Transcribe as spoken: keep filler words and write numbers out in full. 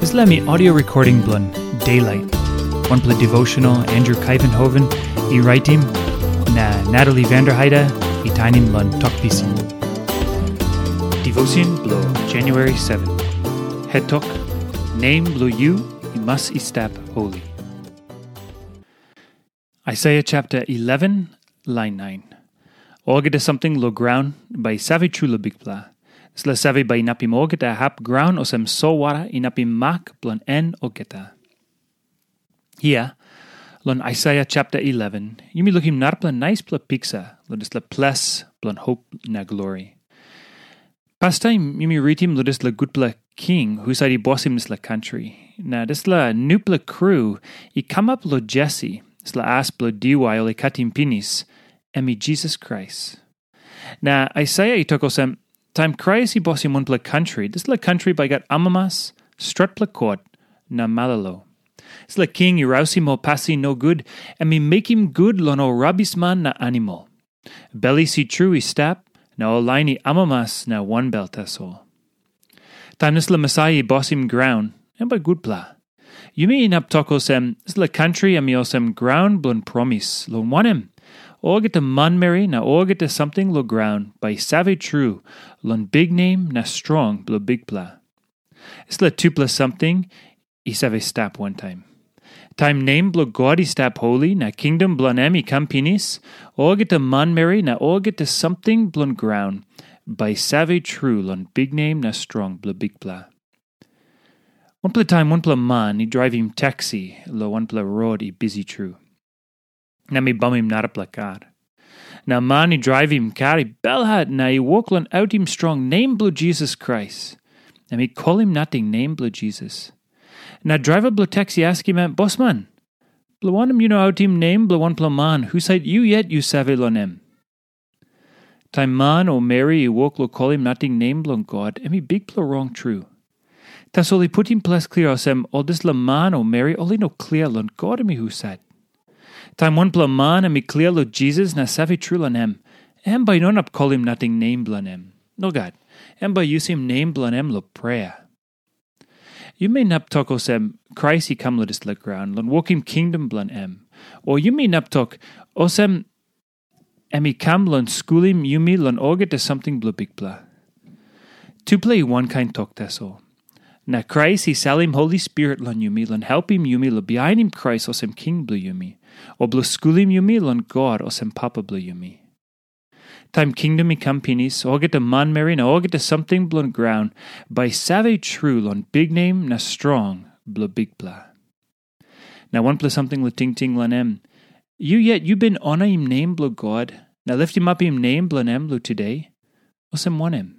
Dispela mi audio recording bilong Daylight. Wanpela devotional Andrew Kaivenhoven i raitim, na Natalie Vanderheide i tainim long Tok Pisin. Devotion bilong January seven. Het tok, nem bilong yu i mas i stap holy. Aisaia chapter eleven, lain nine. Olgeta samting long graun bai i save tru long Bikpela. Dispela save bai inapim olgeta hap graun olsem solwara inapim mak bilong en olgeta. Hia, long Aisaia chapter eleven, yumi lukim narapela naispela piksa long dispela ples bilong hop na glori. Pastaim yumi ritim long dispela gutpela king husat i bosim dispela kantri. Na dispela nupela kru i kamap long Jesi, dispela as bilong diwai ol i katim pinis, em i Jisas Krais. Na Aisaia i tok olsem, taim Krais i bosim wanpela kantri, dispela kantri bai gat amamas, stretpela kot, na malolo. Dispela king i rausim ol pasin nogut, em i mekim gut long ol rabisman na animal. Belis i tru i stap, na ol lain i amamas na wanbel tasol. Taim dispela Mesaia i bosim graun, em bai gutpela. Yumi inap tok olsem, dispela kantri em i olsem graun bilong promis, long wanem, olgeta manmeri na olgeta samting long graun bai i save tru long biknem na strong bilong Bikpela. Dispela tupela samting i save stap wantaim. Taim nem bilong God i stap holi na kingdom bilong em i kam pinis, olgeta manmeri na olgeta samting bilong graun bai i save tru long biknem na strong bilong Bikpela. Wanpela taim wanpela man i draivim taksi long wanpela rot i bisi tru. Na mi bamim narapela kar. Na man i draivim kar i belhat na i wok long autim strong nem bilong Jisas Krais. Na mi kolim nating nem bilong Jisas. Na draiva bilong taksi askim em, "Bosman, bilong wanem yu no autim nem bilong wanpela man husat yu yet yu save long em?" Taim man o meri i wok long kolim nating nem bilong God, em i bikpela rong tru. Tasol i putim ples klia olsem, ol dispela man o meri ol i no klia long God em i husat. Taim wanpela man em i klia long Jisas na save tru long em, em bai i no inap kolim nating nem bilong em. Nogat, em bai i yusim nem bilong em long prea. Yumi inap tok olsem, Krais i kam long dispela graun long wokim kingdom bilong em. O yumi inap tok olsem, em i kam long skulim yumi long olgeta samting bilong Bikpela. Tupela i wankain tok tasol. Na Krais i salim Holi Spirit long yumi long helpim yumi long bihainim Krais olsem king bilong yumi, o bilong skulim yumi long God olsem papa bilong yumi. Taim kingdom i kam pinis, olgeta manmeri na olgeta samting bilong graun bai i save tru long biknem na strong bilong Bikpela. Na wanpela samting long tingting long em, yu yet yu bin onaim nem bilong God na liftimapim nem bilong em long tude? Olsem wanem?